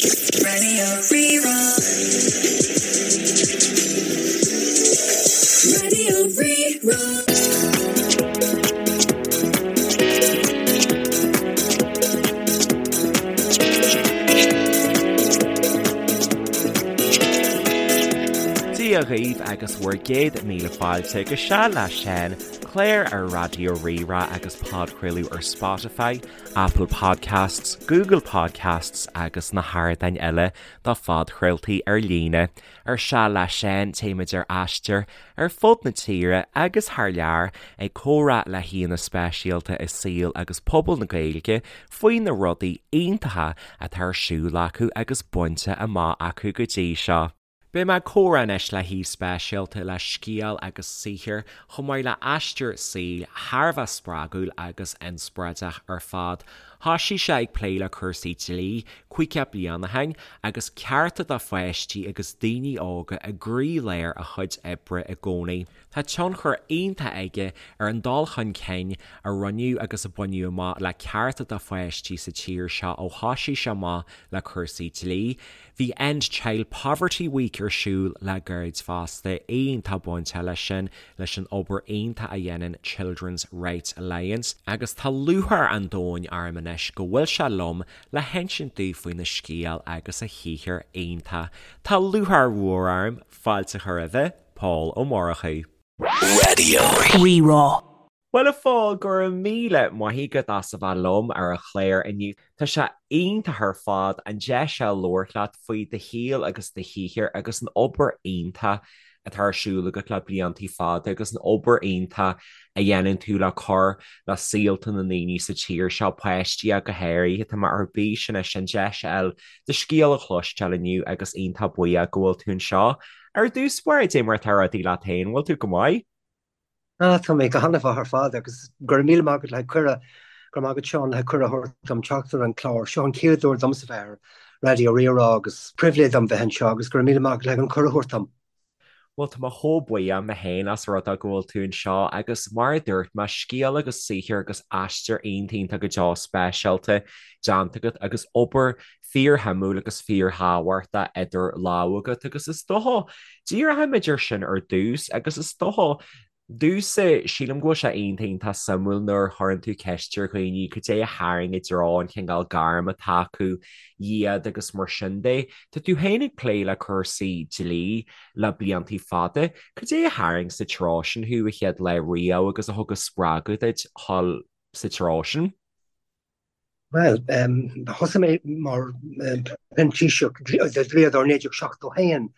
Radio Rí-Rá. Radio Rí-Rá. Dia dhaoibh agus bhur gcéad míle fáilte go Seal le Seán, clár ar Raidió Rí-Rá agus podchraoladh ar Spotify, Apple Podcasts, Google Podcasts agus na hardáin eile do phodchraoltaí ar líne. Ar Seal le Seán, téimid ar aistear ar fud na tíre agus thar lear ag comhrá le haíonna speisialta i saol agus pobal na Gaeilge faoi na rudaí iontacha atá ar siúl acu agus bainte amach acu go dtí seo. Beidh mé ag comhrá anois le haoi speisialta le scéal agus saothar chomh maith le aistear saoil thar a bheith spreagúil agus inspioráideach ar fad. Thoisigh sé ag plé le cúrsaí dlí 50 bliain ó shin agus cearta do pháistí agus daoine óga i gcroílár a chuid oibre i gcónaí. Tá tionchar iontach aige ar an dul chun cinn a rinneadh agus a baineadh amach le cearta do pháistí sa tír seo ó thoisigh sé amach le cúrsaí dlí. Bhí End Child Poverty Week ar siúl le gairid fosta, iontach bainteach leis sin, leis an obair iontach a dhéanann Children's Rights Alliance, agus tá lúcháir an domhain orm anois go bhfuil sé liom le hinsint daoibh faoina scéal agus a shaothar iontach. Tá lúcháir mhór orm fáilte a chur roimhe, Pól Ó Murchú. Raidió Rí-Rá. Bhuel a Phóil, go raibh míle maith agat as a bheith liom ar an chlár inniu. Tá sé iontach ar fad an deis seo labhairt leat faoi do shaol agus do shaothar agus an obair iontach atá ar siúl agat le bliantaí fada agus an obair iontach a dhéanann tú le cur le saolta na ndaoine sa tír seo, páistí ach go háirithe. Tá mé ar bís anois an deis a fháil do scéal a chloisteáil inniu agus iontach buíoch go bhfuil tú anseo. Ar dtús báire, cad é mar atá rudaí leat féin, bhfuil tú go maith? Ah, tá mé go han-mhaith ar fad agus go raibh míle maith agat le cuireadh, go raibh maith agat Seán le cuireadh a thabhairt dom teacht ar an chlár. Seo an chéad uair domsa bheith ar Raidió Rí-Rá agus pribhléid dom bheith anseo agus go raibh míle maith agat le an cuireadh a thabhairt dom. Bhuel, tá mé chomh buíoch mé féin as rud é go bhfuil tú anseo agus mar a dúirt mé, scéal agus saothar agus aistear iontach iontach go deo speisialta déanta agat agus obair fíorshuimiúil agus fíorthábhachtach idir lámha agat agus is dócha, díreoimid air sin ar dtús agus is dócha, domhsa, sílim go bhfuil sé iontach iontach suimiúil nuair a chuireann tú ceist ar dhaoine cad é a tharraing i dtreo an chineál gairm atá acu iad agus mar sin de. Tá tú féin ag plé le cúrsaí dlí le bliantaí fada. Cad é a tharraing sa treo sin thú a chéad lá riamh agus a thug an spreagadh duit dhul sa treo sin? Bhuel, thosaigh mé mar phrintíseach do dhlíodóir 1971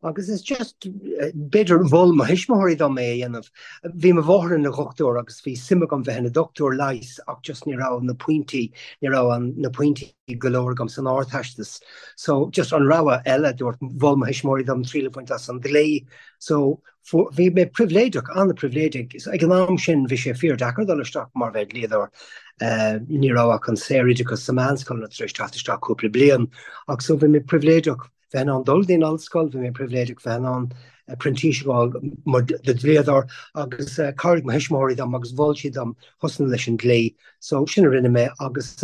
agus is just, b'fhéidir, mhol mo thuismitheoirí dom é a dhéanamh. Bhí mo mháthair ina dhochtúir agus bhí suim agam bheith ina dochtúir leighis ach just ní raibh na pointí, ní raibh na pointí go leor agam san Ardteastas. So just an rogha eile, dúirt, mhol mo thuismitheoirí dom triail a bhaint as an dlí. So Bhí mé pribhléideach, an-pribhléideach. Ag an am sin bhí sé fíor-deacair dul isteach mar bheith dlíodóir. Ní raibh ach an saoroideachas sa meánscoileanna tar éis teacht isteach cúpla bliain. Ach so bhí mé pribhléideach bheith in ann dul dtí an ollscoil, bhí mé pribhléideach bheith in ann printíseach a fháil mar do dhlíodóir agus chabhraigh mo thuismitheoirí dom agus mhol siad dom thosnú leis an dlí. So sin a rinne mé agus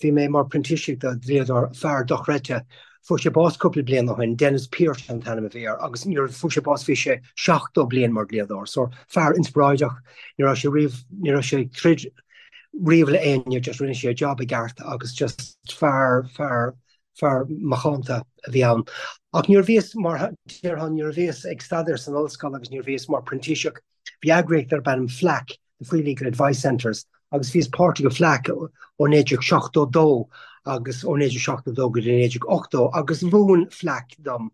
Bhí mé mar printíseach do dhlíodóir, fear dochreidte. Fuair sé bás cúpla bliain ó shin, Denis Pearse an t-ainm a bhí air, agus nuair a fuair sé bás bhí sé 70 bliain mar dhlíodóir. So, fear inspioráideach, ní raibh sé riamh, ní raibh sé ag troid riamh le éinne, just rinne sé a job i gceart agus just fear, fear, fear macánta a bhí ann. Ach nuair a bhíos mar, déarfá, nuair a bhíos ag staidéar san ollscoil agus nuair a bhíos mar printíseach, Bhí eagraíocht darb ainm FLAC, The Free Legal Advice Centres, agus bhíos páirteach i FLAC ó 1972 agus ó 1972 go dtí 1980 agus mhúin FLAC dom.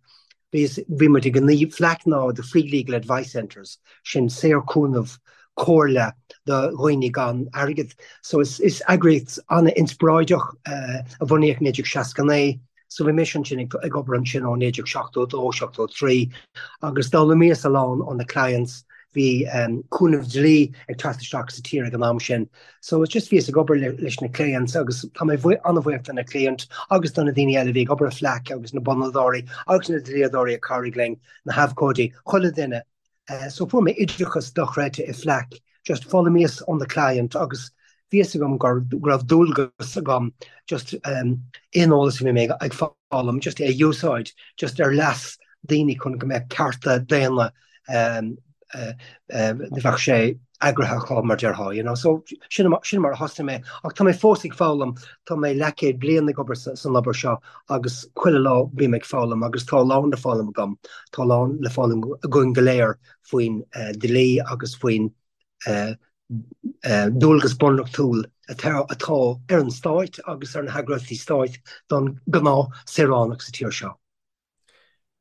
Bhíos, bhí muid ag an, FLAC ná The Free Legal Advice Centres, sin saorchúnamh comhairle do dhaoine gan airgead. So is, is eagraíocht an-inspioráideach a bunaíodh i 1969. So bhí mise ansin ag obair ansin ó 1972, 73 agus d'fhoghlaimíos a lán ó na clients, bhí cúnamh dlí ag teacht isteach sa tír ag an am sin. So it's just bhíos ag obair leis na clients agus tá mé an-bhuíoch do na client agus do na daoine eile a bhí ag obair i FLAC agus na bunadóirí agus na dlíodóirí a chabhraigh linn, na habhcóidí, chuile duine. So fuair mé oideachas dochreidte i FLAC, just foghlaimíos ó na client agus. Bhí fhios agam go raibh dualgas agam just aon eolas a bhí mé ag foghlaim just é a úsáid just ar leas daoine chun go mbeadh cearta daonna bheadh sé eagraithe acu mar déarfá, you know. So sin sin mar a thosaigh mé ach tá mé fós ag foghlaim, tá mé leathchéad bliain ag obair san obair seo agus chuile lá bím ag foghlaim agus tá a lán le foghlaim agam, tá a lán le foghlaim againn go léir faoin dlí agus faoin dualgas bunreachtúil atá ar an stáit agus ar na heagraíochtaí stáit don gnáth saoránach sa tír seo.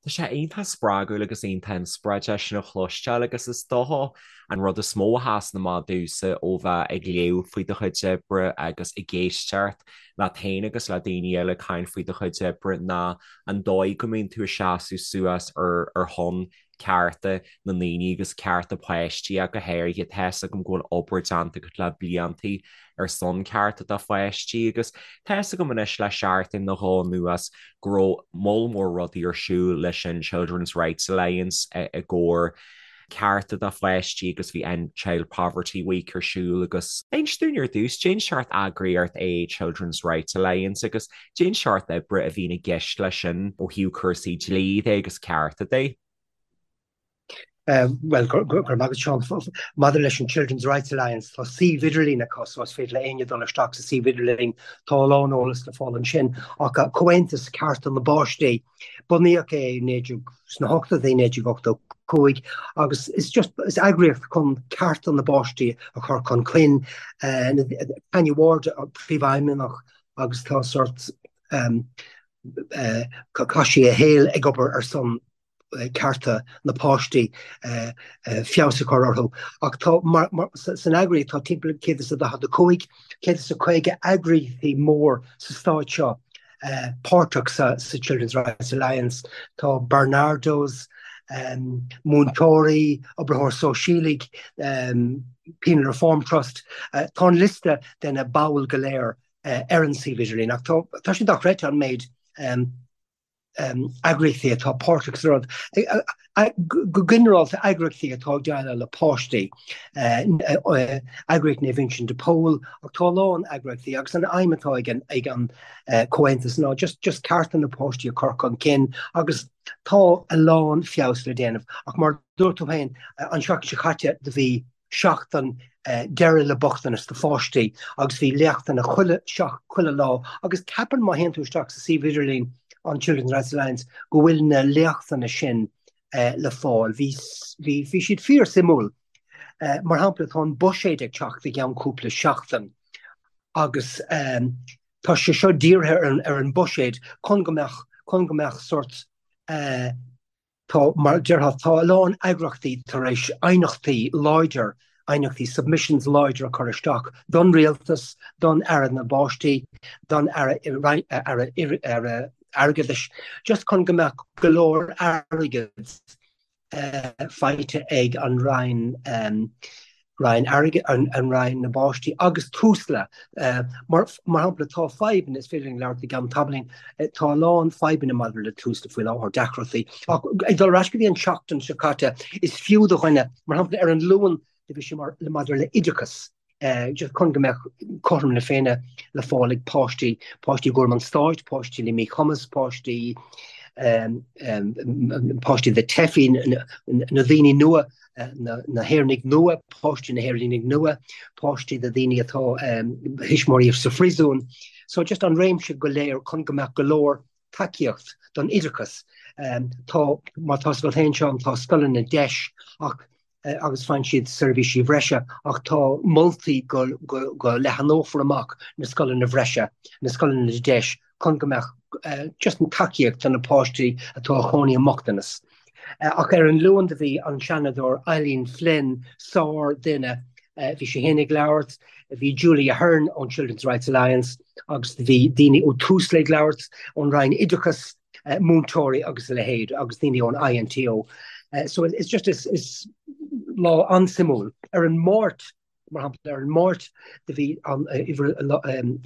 Tá sé iontach spreagúil agus iontach inspioráideach sin a chloisteáil agus is dócha an rud is mó a sheasann amach domhsa ó bheith ag léamh faoi do chuid oibre agus ag éisteacht leat féin agus le daoine eile ag caint faoi do chuid oibre ná an dóigh go mbíonn tú ag seasamh suas ar ar shon cearta na ndaoine agus cearta páistí ach go háirithe. Tá 'fhios agam go bhfuil obair déanta agat le bliantaí ar son cearta do pháistí agus tá 'fhios agam anois le seachtain nó dhó anuas go raibh moll mór rudaí ar siúl leis an Children's Rights Alliance i gcomhair cearta do pháistí agus bhí End Child Poverty Week ar siúl agus inis dúinn ar dtús, cén seort eagraíocht é Children's Rights Alliance agus cén seort oibre a bhíonn i gceist leis sin ó thaobh cúrsaí dlí de agus cearta de. Bhuel, go raibh maith agat, Seán. Maidir leis an Children's Rights Alliance, tá suíomh idirlín acu so is féidir le éinne dul isteach sa suíomh idirlín. Tá a lán eolas le fáil ansin. Ach Comhaontas Cearta na bPáistí, bunaíodh é sna hochtóidí, 1985, agus is just, is eagraíocht chun cearta na bpáistí a chur chun cinn. Tanya Ward, príomhfheidhmeannach, agus tá sort, chaith sí a shaol ag obair ar son cearta na páistí, feabhas a chur orthu. Ach tá, san eagraíocht, tá timpeall 145, 150 eagraíochtaí mór sa stát seo páirteach sa Children's Rights Alliance. Tá Barnardo's, múinteoirí, oibritheoir sóisialaigh, Penal Reform Trust. Tá an liosta de na baill go léir ar an suíomh idirlín ach tá sé dochreidte an méid eagraíochtaí atá páirteach sa rud. Go ginearálta eagraíochtaí atá ag déileáil le páistí, eagraíocht Naomh Uinseann de Pól, ach tá a lán eagraíochtaí agus an aidhm atá ag an ag an comhaontas ná just just cearta na páistí a chur chun cinn agus tá a lán feabhas le déanamh. Ach mar dúirt tú féin, an seachtain seo caite do bhí seachtain deireadh le bochtanas do pháistí agus bhí léachtanna chuile chuile lá agus ceapaim má théann tú isteach sa suíomh idirlín an Children's Rights Alliance go bhfuil na léachtanna sin le fáil. Bhí bhí bhí siad fíor suimiúil. Mar shampla tá an buiséad ag teacht i gceann cúpla seachtain agus tá sé seo dírithe ar an ar an buiséad chun go mbeadh chun go mbeadh sort Tá, mar a déarfá, tá a lán eagraíochtaí tar éis aighneachtaí láidir, aighneachtaí, submissions láidir a chur isteach don rialtas, don Aire na bPáistí, don Aire, Aire, Aire Airgeadais, just chun go mbeadh go leor airgid faighte ag an Roinn. Roinn Airgid, an Roinn na bPáistí agus Tusla. Mar shampla, tá fadhbanna, is féidir linn labhairt i gceann tamaillín, tá a lán fadhbanna maidir le Tusla faoi láthair, deacrachtaí. Ach ag dul ar ais go dtí an tseachtain seo caite, is fiú do dhuine, mar shampla, ar an Luan, bhí sé mar maidir le oideachas, just chun go mbeadh cothrom na Féinne le fáil ag páistí, páistí i gcúram an stáit, páistí le míchumas, páistí, páistí de teifigh, na daoine nua na hÉireannaigh nua, páistí na hÉireannaigh nua, páistí de daoine atá thuismitheoirí sa phríosún. So just an réimse go léir chun go mbeadh go leor tacaíocht don oideachas. Tá, mar tá a fhios agat féin Seán, tá scoileanna deis ach agus faigheann siad seirbhísí bhreise ach tá moltaí go go leathanófar amach na scoileanna bhreise, na scoileanna deis chun go mbeadh just an tacaíocht do na páistí atá a chónaí i mbochtanas. Ach ar an Luan do bhí an Seanadóir Eileen Flynn, sár duine, bhí sí féin ag labhairt, bhí Julie Ahern ón Children's Rights Alliance agus do bhí daoine ó Tusla ag labhairt, ón Roinn Oideachais, múinteoirí agus a leithéid agus daoine ón INTO. So it's just is, is lá an-suimiúil. Ar an Máirt, Mar shampla, ar an Máirt do bhí an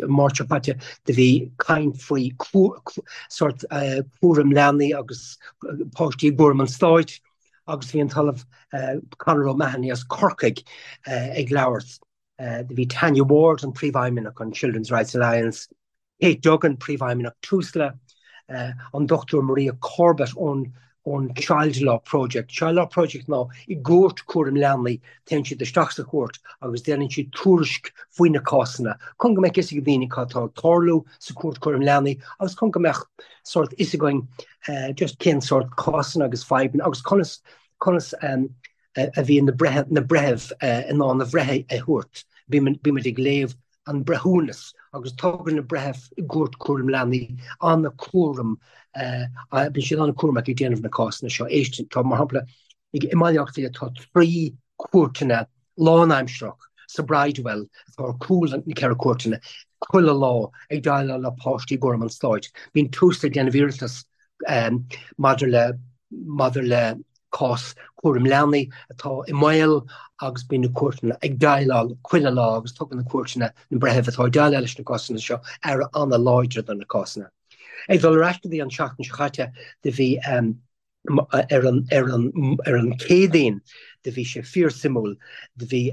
Máirt seo caite do bhí caint faoi sórt cúram leanaí agus páistí i gcúram an stáit agus bhí an tOllamh Conor O'Mahony as Corcaigh ag labhairt. Do bhí Tanya Ward, an Príomhfheidhmeannach an Children's Rights Alliance, Kate Duggan, Príomhfheidhmeannach Tusla, an Dr Maria Corbett ón ón Child Law Project. Child Law Project ná i gcúirt cúram leanaí, téann siad isteach sa chúirt agus déanann siad tuairisc faoi na cásanna chun go mbeadh fhios ag daoine cad atá ag tarlú sa chúirt cúram leanaí agus chun go mbeadh sórt fhios againn just cén sórt cásanna agus fadhbanna agus conas conas a bhíonn na breith na breithimh in ann a bhreith a thabhairt. Bímid ag léamh an breithiúnas agus tugann na breithimh i gcúirt cúram leanaí an-chúram, bíonn siad an-chúramach ag déanamh na cásanna seo. Éist, tá, mar shampla, i mBaile Átha Cliath tá 3 cúirteanna lánaimsearach sa Bridewell atá ar cúl na ceithre cúirteanna chuile lá ag déileáil le páistí i gcúram an stáit. Bíonn Tusla ag déanamh iarratas maidir le maidir le cás cúram leanaí atá i mbaol agus bíonn na cúirteanna ag déileáil chuile lá agus tugann na cúirteanna, na breithimh atá ag déileáil leis na cásanna seo, aire an-láidir do na cásanna. Ag dul ar ais go dtí an tseachtain seo chaite, do bhí ar an ar an ar an Chéadaoin, do bhí sé fíorsuimiúil, do bhí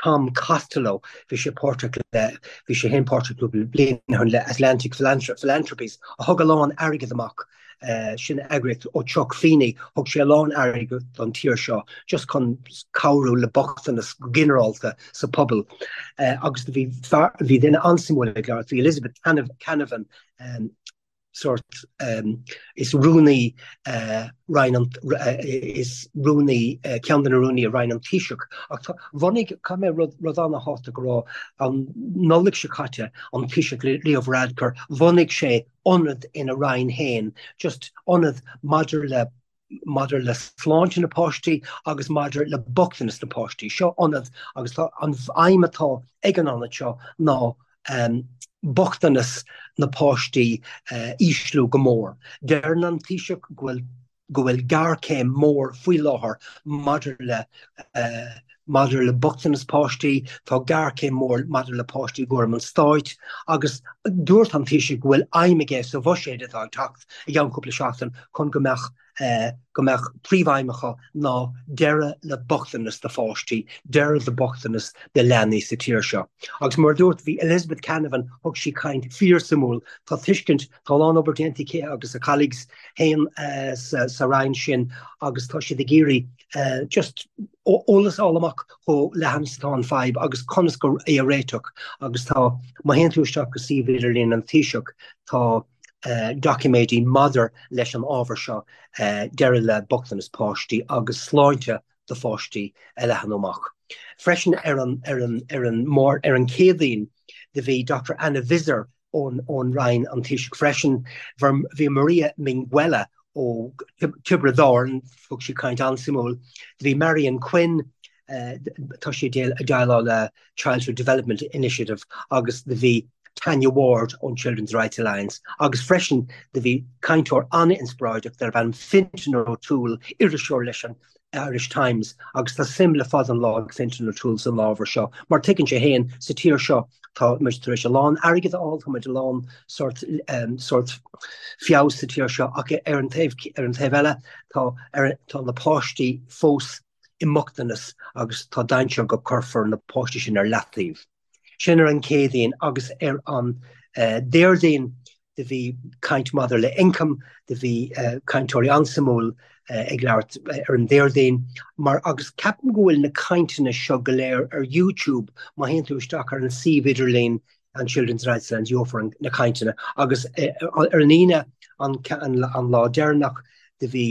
Tom Costello, bhí sé páirteach le, bhí sé féin páirteach cúpla bliain ó shin le Atlantic Philanthropies, a thug a lán airgead amach, sin eagraíocht ó Chuck Feeney, thug sé a lán airgead don tír seo just chun cabhrú le bochtanas go ginearálta sa pobal. Agus bhí fear, bhí duine an-suimiúil ag labhairt, bhí Elizabeth Canavan, sórt, is rúnaí Roinn an, is rúnaí, ceann de na rúnaí i Roinn an Taoiseach. Ach tá, bhunaigh, caithfidh mé rud, rud an-thábhachtach a rá, an Nollaig seo caite, an Taoiseach Leo Varadkar, bhunaigh sé ionad ina Roinn féin, just ionad maidir le, maidir le sláinte na páistí agus maidir le bochtanas na páistí. Seo ionad agus tá an aidhm atá ag an ionad seo ná bochtanas na páistí a ísliú go mór. Deireann an Taoiseach go bhfuil go bhfuil géarchéim mór faoi láthair maidir le maidir le bochtanas páistí, tá géarchéim mór maidir le páistí i gcúram an stáit agus dúirt an Taoiseach go bhfuil aidhm aige sa bhuiséad atá ag teacht i gceann cúpla seachtain chun go mbeadh go mbeadh príomhaidhm acu ná deireadh le bochtanas do pháistí, deireadh le bochtanas do leanaí sa tír seo. Agus mar a dúirt, bhí Elizabeth Canavan, thug sí caint fíorsuimiúil, tá tuiscint, tá a lán obair déanta aici agus a colleagues féin sa roinn sin agus tá siad ag iarraidh just eolas a fháil amach chomh leathan is atá an fadhb agus conas go é a réiteach agus tá, má théann tú isteach go suíomh idirlín an Taoiseach, tá doiciméidí maidir leis an ábhar seo, deireadh le bochtanas páistí agus sláinte do pháistí a leathnú amach. Freisin ar an ar an ar an ar an Chéadaoin do bhí Doctor Anna Visser ón ón Roinn an Taoiseach freisin. Bhí Maria Minguella ó Tiobraid Árann, thug sí caint an-suimiúil. Do bhí Marian Quinn, tá sí ag déileáil le Childhood Development Initiative agus do bhí Tanya Ward ón Children's Rights Alliance agus freisin do bhí cainteoir an-inspioráideach darb ainm Fintan O'Toole, iriseoir leis an Irish Times agus tá suim le fada an lá ag Fintan O'Toole san ábhar seo mar tuigeann sé féin sa tír seo tá muid tar éis a lán airgead a fháil, tá muid a lán sórt sórt feabhas sa tír seo ach ar an taobh ar an taobh eile tá ar tá na páistí fós i mbochtanas agus tá dainséar go cuirfear na páistí sin ar leataobh. Sin ar an Chéadaoin agus ar an Déardaoin do bhí caint maidir le ioncam, do bhí cainteoirí an-suimiúil ag labhairt ar an Déardaoin mar agus ceapaim go bhfuil na cainteanna seo go léir ar YouTube má théann tú isteach ar an suíomh idirlín an Children's Rights Alliance gheofar na cainteanna agus ar an Aoine an an lá deireanach do bhí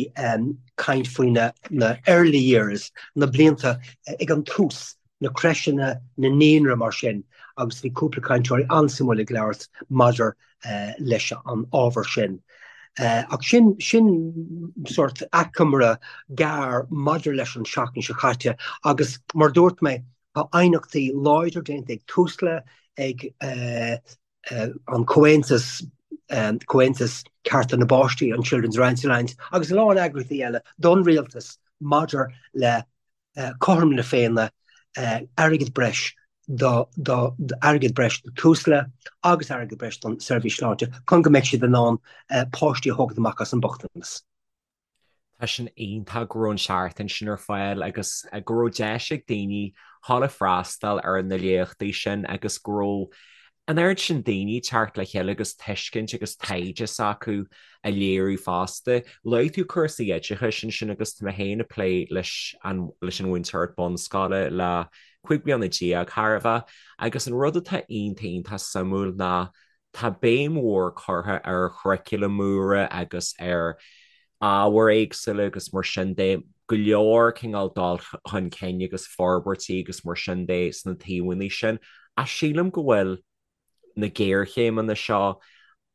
caint faoi na na early years, na blianta ag an tús, na crècheanna, na naíonra mar sin agus bhí cúpla cainteoirí an-suimiúil ag labhairt maidir leis an ábhar sin. Ach sin sin sórt achoimre gearr maidir leis an seachtain seo caite agus mar dúirt mé tá aighneachtaí láidir déanta ag Tusla, ag an Comhaontas, Comhaontas Cearta na bPáistí, an Children's Rights Alliance agus a lán eagraíochtaí eile don rialtas maidir le cothrom na Féinne, airgead breis do airgead breis do Tusla agus airgead breis don seirbhís sláinte chun go mbeidh siad in ann páistí a thógaint amach as an mbochtanas. Tá sin iontach go raibh an seachtain sin ar fáil agus go raibh deis ag daoine dhul ag freastal ar na léachtaí sin agus go raibh an oiread sin daoine ag teacht le chéile agus tuiscint agus taighde s'acu a léiriú fosta. Luaigh tú cúrsaí oideachais ansin agus tá mé féin ag plé leis an leis an mhúinteoireacht bunscoile le 15 bliana chóir a bheith agus an rud atá iontach iontach suimiúil ná tá béim mhór curtha ar churaclaim úra agus ar ábhair éagsúla agus mar sin de, go leor cineál dul chun cinn agus forbairtí agus mar sin de sna taobhanna sin. Ach sílim go bhfuil na géarchéimeanna seo,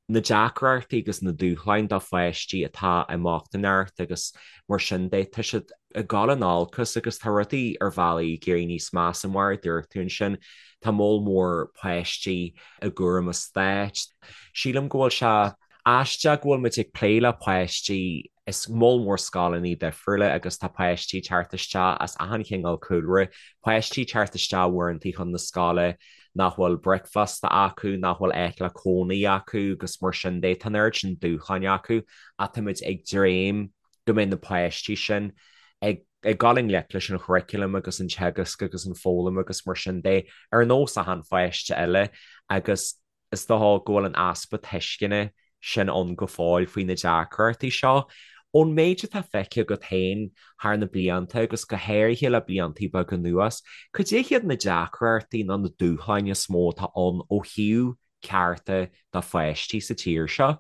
na deacrachtaí agus na dúshláin do pháistí atá i mbochtaineacht agus mar sin de, tá siad ag dul in olcas agus tá rudaí ar bhealaí ag éirí níos measa mar a dúirt tú ansin, tá moll mór páistí i gcúram an stáit. Sílim go bhfuil sé aisteach go bhfuil muid ag plé le páistí i moll mór scoileanna difriúla agus tá páistí ag teacht isteach as achan chineál cúlra, páistí ag teacht isteach uaireanta chun na scoile nach bhfuil bricfeasta acu, nach bhfuil áit le cónaí acu agus mar sin de. Tá an oiread sin dúshláin acu ach táimid ag dréim go mbeidh na páistí sin ag ag dul i ngleic leis an churaclam agus an teagasc agus an foghlaim agus mar sin de ar nós achan pháiste eile agus is dócha go bhfuil an easpa tuisceana sin ann go fóill faoi na deacrachtaí seo. Ón méid atá feicthe agat féin thar na blianta agus go háirithe le blianta beaga anuas, cad é hiad na deacrachtaí nó na dúshláin is mó atá ann ó thaobh cearta do pháistí sa tír seo?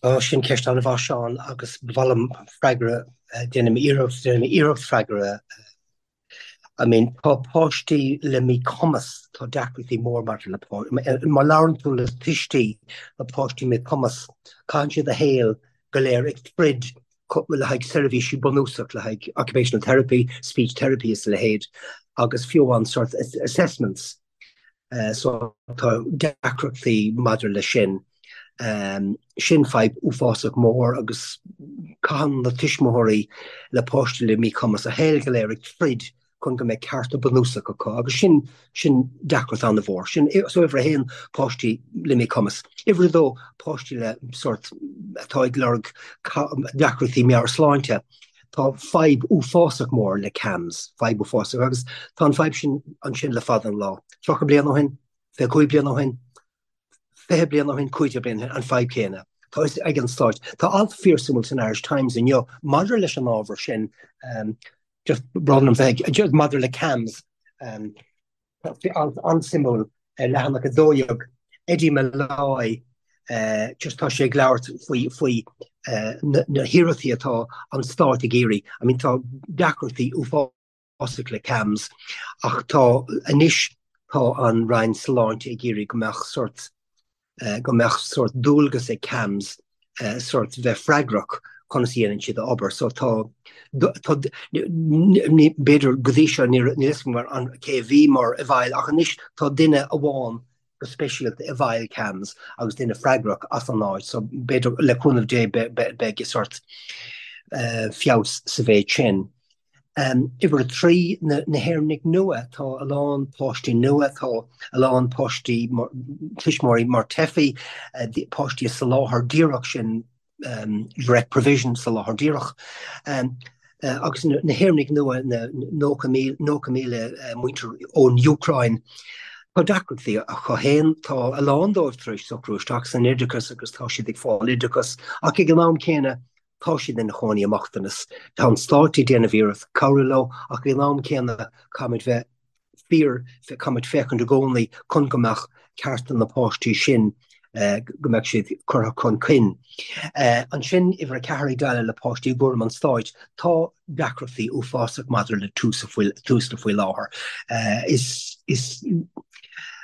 Ó, sin ceist an-mhaith, Seán, agus ba mhaith liom freagra, déanfaidh mé iarracht, déanfaidh mé iarracht freagra. I mean, tá páistí le míchumas, tá deacrachtaí mór maidir le, má labhrann tú le tuistí le páistí míchumas, caitheann siad a shaol go léir ag troid le haghaidh seirbhísí bunúsach, le haghaidh occupational therapy, speech therapy is a leithéid, agus fiú amháin sort assessments. So tá deacrachtaí maidir leis sin. Sin fadhb uafásach mór agus caitheann na tuismitheoirí le páistí le míchumas a shaol go léir ag troid chun go mbeidh cearta bunúsach acu agus sin sin deacracht an-mhór. Sin so uimhir a haon páistí le míchumas. Uimhir a dó páistí le sort atá ag lorg deacrachtaí meabhairshláinte. Tá fadhb uafásach mór le CAMHS, fadhb uafásach, agus tá an fadhb sin ansin le fada an lá. 30 bliain ó shin, 25 bliain ó shin, 20 bliain ó shin, 15 bliain ó shin, an fadhb céanna. Tá fhios ag an Stáit. Tá alt fíorsuimiúil san Irish Times inniu maidir leis an ábhar sin, just brón orm bheith, maidir le CAMHS. Alt an-suimiúil ar leathanach 12, Eddie Molloy, just tá sé ag labhairt faoi faoi na hiarrachtaí atá an stát ag iarraidh. I mean tá deacrachtaí uafásach le CAMHS ach tá anois tá an Roinn Sláinte ag iarraidh go mbeadh sort go mbeadh sórt dualgas ag CAMHS sórt bheith freagrach conas a dhéanann siad a obair. So tá, tá, ní, b'fhéidir go dtí seo ní níl fhios agam mar an cé a bhí mar i bhfeighil ach anois tá duine amháin go speisialta i bhfeighil CAMHS agus duine freagrach as an áit. So b'fhéidir le cúnamh Dé beidh sórt feabhas sa mhéid sin. Uimhir 3, na hÉireannaigh nua. Tá a lán páistí nua, tá a lán páistí, tuismitheoirí mar teifigh, páistí i soláthar díreach, sin direct provision, soláthar díreach. Agus na hÉireannaigh nua, na 90,000 muintir ón Úcráin, tá deacrachtaí acu féin. Tá a lán dóibh tar éis socrú isteach san oideachas agus tá siad ag fáil oideachas ach ag an am céanna, Tá siad ina chónaí i mbochtanas. Tá an stát ag déanamh iarracht cabhrú leo ach ag an am céanna caithfimid bheith fíor, caithfimid féachaint i gcónaí chun go mbeadh cearta na páistí sin, go mbeadh siad curtha chun cinn. Ansin, uimhir 4 ag déileáil le páistí i gcúram an stáit, tá deacrachtaí uafásach maidir le Tusla faoi láthair. Is, is,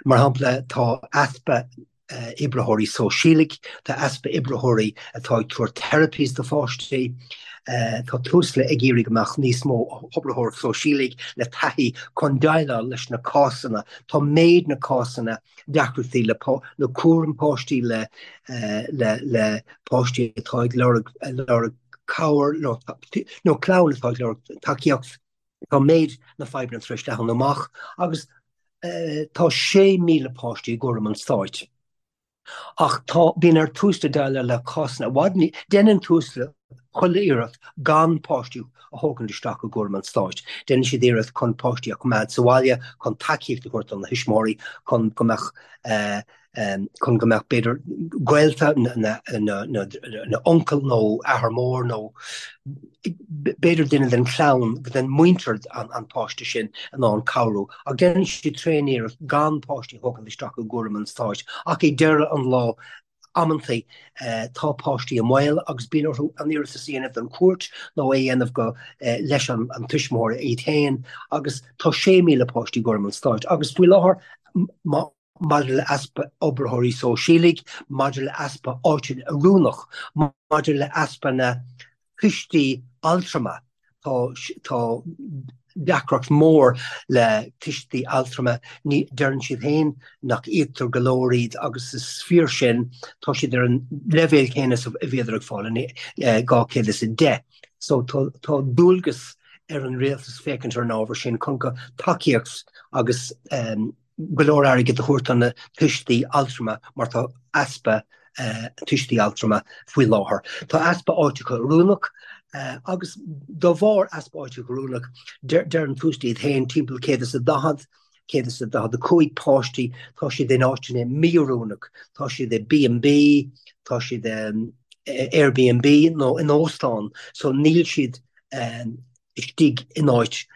mar shampla, tá easpa oibritheoirí sóisialaigh, tá easpa oibritheoirí atá ag tabhairt therapies do pháistí, tá Tusla ag iarraidh go mbeadh níos mó oibritheoirí sóisialaigh le taithí chun déileáil leis na cásanna, tá méid na cásanna deacrachtaí le le cúram páistí le le le páistí atá ag lorg lorg cabhair nó nó clann atá ag lorg tacaíocht. Tá méid na fadhbanna tar éis leathnú amach agus tá 6,000 páistí i gcúram an stáit. Ach tá, bíonn ar Tusla déileáil le cásanna i bhfad, déanann Tusla. chuile iarracht gan páistí a thógaint isteach i gcúram an stáit. Déanann siad iarracht chun páistí a choimeád sa bhaile, chun tacaíocht a thabhairt do na thuismitheoirí, chun go mbeadh chun go mbeadh b'fhéidir gaolta na uncail nó athair mór nó b'fhéidir duine den chlann, den muintir an páiste sin in ann cabhrú. Ach déanann siad tréan-iarracht gan páistí a thógaint isteach i gcúram an stáit. Ach ag deireadh an lá Amantaí tá páistí i mbaol agus bíonn orthu an iarratas a dhéanamh don chúirt nó é a dhéanamh go leis an tuismitheoir iad féin agus tá 6,000 páistí i gcúram an stáit agus faoi láthair maidir le easpa oibritheoirí sóisialaigh, maidir le easpa áiteanna oiriúnach, maidir le easpa na tuistí altrama. Tá tá deacracht mór le tuistí altrama. Ní deireann siad féin nach íoctar go leor iad agus is fíor sin. Tá siad ar an leibhéal céanna is a bhíodar ag fáil in 210. So tá tá dualgas ar an rialtas féachaint ar an ábhar sin chun go tacaíocht agus go leor airgid a thabhairt do na tuistí altrama mar tá easpa tuistí altrama faoi láthair. Tá easpa áiteacha oiriúnach agus de bharr easpa áiteacha oiriúnach deireann Tusla iad féin timpeall 140, 145 páistí, tá siad in áiteanna mí-oiriúnach, tá siad i B&B, tá siad i Airbnb nó in óstán so níl siad istigh in áit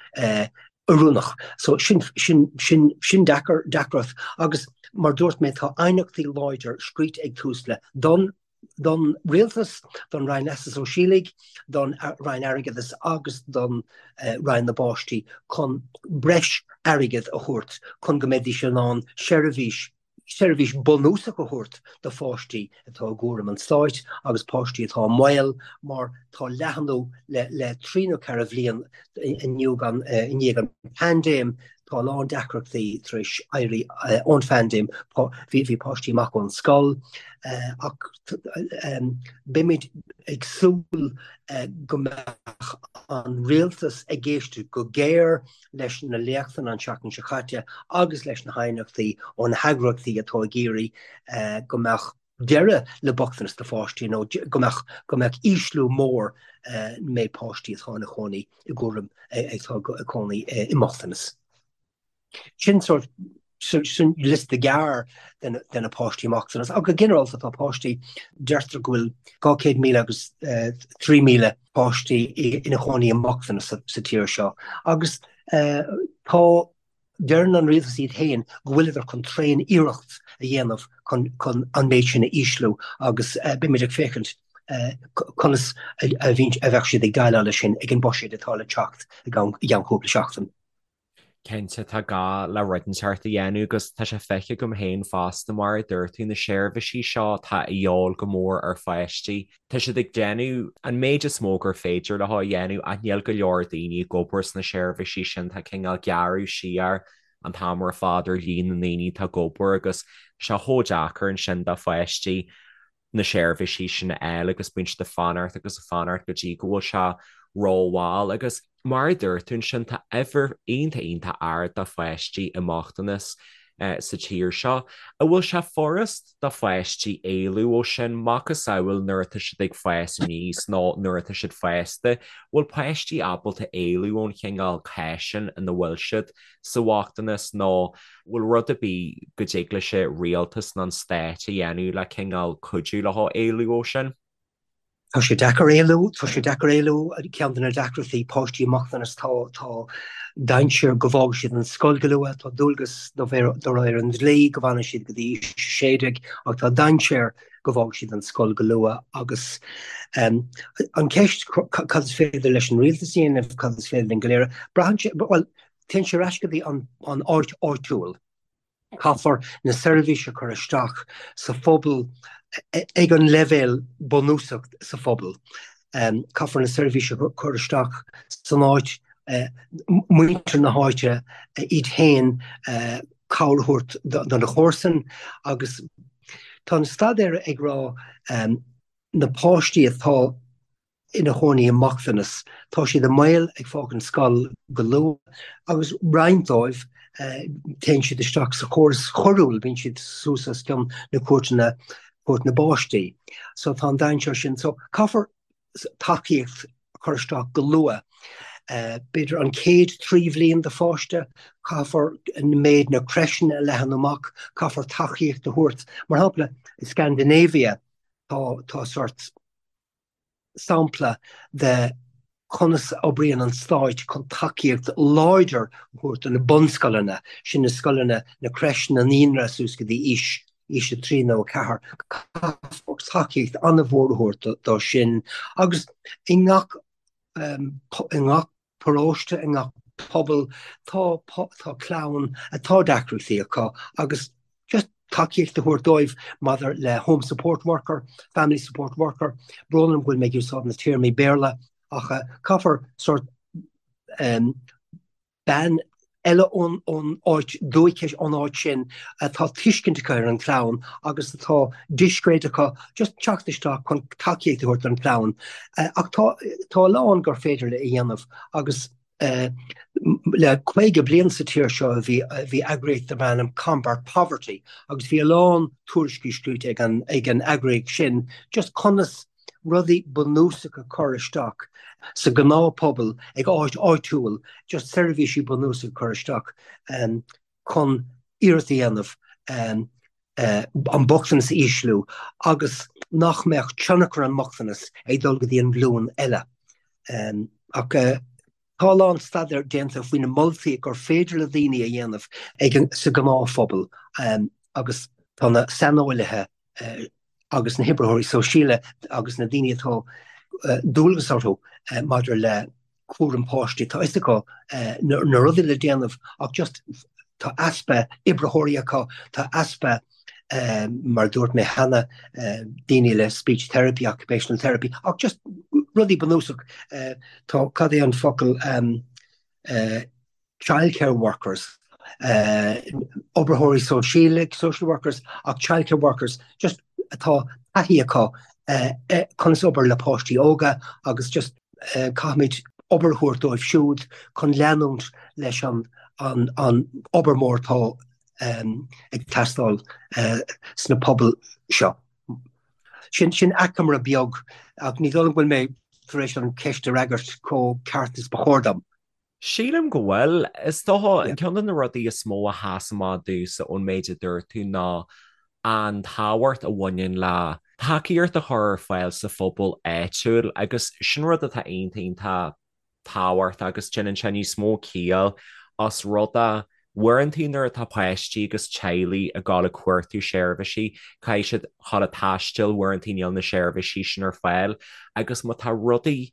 oiriúnach. So sin, sin, sin, sin deacair, deacracht agus mar dúirt mé tá aighneachtaí láidir scríte ag Tusla don, don Rialtas, don Roinn Leasa Sóisialaigh, don Roinn Airgeadais agus don Roinn na bPáistí chun breis airgid a thabhairt chun go mbeidís in ann seirbhís seirbhís bunúsach a thabhairt do pháistí atá i gcúram an stáit agus páistí atá i mbaol mar tá leathnú le trí nó ceithre bhliain i ndiaidh an phaindéim, tá a lán deacrachtaí tar éis éirí ón phaindéim, bhí páistí amach ón scoil ach beimid ag súil go mbeadh an rialtas ag éisteacht go géar leis na léachtanna an tseachtain seo caite agus leis na haighneachtaí ó na heagraíochtaí atá ag iarraidh go mbeadh deireadh le bochtanas do pháistí nó go mbeadh go mbeadh ísliú mór méid páistí atá ina chónaí i gcúram atá ag cónaí i mbochtanas. Sin sort sin liosta gearr de na páistí i mbochtanas. Ach go ginearálta tá páistí, deirtear go bhfuil 200,000 agus 3,000 páistí ina chónaí i mbochtanas sa tír seo. Agus tá, deireann an rialtas iad féin go bhfuileadar chun tréan iarracht a dhéanamh chun an méid sin a ísliú agus beimid ag féachaint conas a bheadh siad ag déileáil leis sin ag an buiséad atá le teacht i gceann cúpla seachtain. Cinnte, tá gá le rud inteacht a dhéanamh agus tá sé feicthe agam féin fosta, mar a dúirt tú, na seirbhísí seo atá a dhíobháil go mór ar pháistí. Tá siad ag déanamh an méid is mó gur féidir leo a dhéanamh ach níl go leor daoine ag obair sna seirbhísí sin, tá cineál gearradh siar an t-am ar fad ar líon na ndaoine atá ag obair agus tá sé chomh deacair ansin do pháistí na seirbhísí sin a fháil agus bíonn siad ag fanacht agus ag fanacht go dtí go bhfuil sé rómhall agus mar a dúirt tú ansin tá uimhir iontach iontach ard de pháistí i mbochtanas sa tír seo. An bhfuil sé furast do pháistí éalú ó sin, macasamhail nuair atá siad ag fás aníos nó nuair atá siad fásta, bhfuil páistí ábalta éalú ón chineál cás sin ina bhfuil siad sa bhochtanas nó bhfuil rud ar bith go dtig leis an rialtas nó an stát a dhéanamh le cineál cuidiú leo éalú ó sin? Tá sé deacair éalú, tá sé deacair éalú, ceann de na deacrachtaí páistí i mbochtanas tá tá dainséar go bhfágfaidh siad an scoil go luath, tá dualgas de réir an dlí go bhfanfaidh siad go dtí aois 16 ach tá dainséar go bhfágfaidh siad an scoil go luath agus an cheist cad is féidir leis an rialtas a dhéanamh, cad is féidir linn go léir, braitheann sé, bhuel, Téann sé ar ais go dtí an áit áitiúil. Caithfear na seirbhísí a chur isteach sa phobal ag an leibhéal bunúsach sa phobal. Caithfear na seirbhísí a chur isteach san áit, muintir na háite iad féin cabhair a thabhairt do na comharsain agus tá na staidéir ag rá na páistí atá ina chónaí i mbochtanas. Tá siad i mbaol ag fágaint scoil go luath agus roinnt dóibh téann siad isteach sa chóras choiriúil, bíonn siad suas os cionn na cúirteanna, cúirt na bpáistí. So tá an dainséar sin. So caithfear. tacaíocht a chur isteach go luath. B'fhéidir an chéad 3 bhliain de pháiste, caithfear méid na crècheanna a leathanú amach, caithfear tacaíocht a thabhairt. Mar shampla, i Scandinavia tá tá sort sampla de conas a oibríonn an stáit chun tacaíocht láidir a thabhairt do na bunscoileanna, sin na scoileanna, na crècheanna, naíonra suas go dtí aois aois 3 nó 4. Caithfear tacaíocht an-mhór a thabhairt dó sin agus i ngach i ngach paróiste, i ngach pobal tá tá clann atá deacrachtaí acu agus just tacaíocht a thabhairt dóibh maidir le home support worker, family support worker, brón orm go bhfuil mé ag úsáid na téarmaí Béarla ach caithfear sort bean eile ón áit dúchais, ón áit sin, atá tuiscint acu ar an chlann agus atá discréid acu just teacht isteach chun tacaíocht a thabhairt don chlann. Ach tá tá a lán gur féidir le a dhéanamh agus le 50 bliain sa tír seo bhí bhí eagraíocht darb ainm Combat Poverty agus bhí a lán tuairiscí scríte ag an ag an eagraíocht sin just conas rudaí bunúsacha a chur isteach sa ghnáthphobal ag áit áitiúil, just seirbhísí bunúsacha a chur isteach chun iarracht a dhéanamh an bochtanas a ísliú agus nach mbeadh tionchar an mbochtanas ag dul go dtí an ghlúin eile. Ach tá a lán staidéar déanta faoi na moltaí gur féidir le daoine a dhéanamh ag sa ghnáthphobal agus tá na saineolaithe agus na hoibritheoirí sóisialta agus na daoine atá dualgas orthu maidir le cúram páistí, tá fhios acu na rudaí le déanamh ach just tá easpa oibritheoirí acu, tá easpa mar a dúirt mé cheana, daoine le speech therapy, occupational therapy ach just rudaí bunúsach, tá, cad é an focal, childcare workers, oibritheoirí sóisialta, social workers, ach childcare workers just atá taithí acu conas obair le páistí óga agus just caithfimid obair a thabhairt dóibh siúd chun leanúint leis an an obair mór atá ag teastáil sna pobail seo. Sin sin achoimre beag ach ní dóigh liom go bhfuil mé tar éis an cheist a fhreagairt chomh ceart is ba chóir dom. Sílim go bhfuil. Is dócha, ceann de na rudaí is mó a sheas amach domhsa ón méid a dúirt tú ná an tábhacht a bhaineann le tacaíocht a chur ar fáil sa phobal áitiúil agus sin rud atá iontach iontach tábhachtach agus déanann sé níos mó ciall os rud é uaireanta nuair atá páistí agus teaghlaigh ag dul ag cuartú seirbhísí, caithfidh siad dul ag taisteal, uaireanta níl na seirbhísí sin ar fáil agus má tá rudaí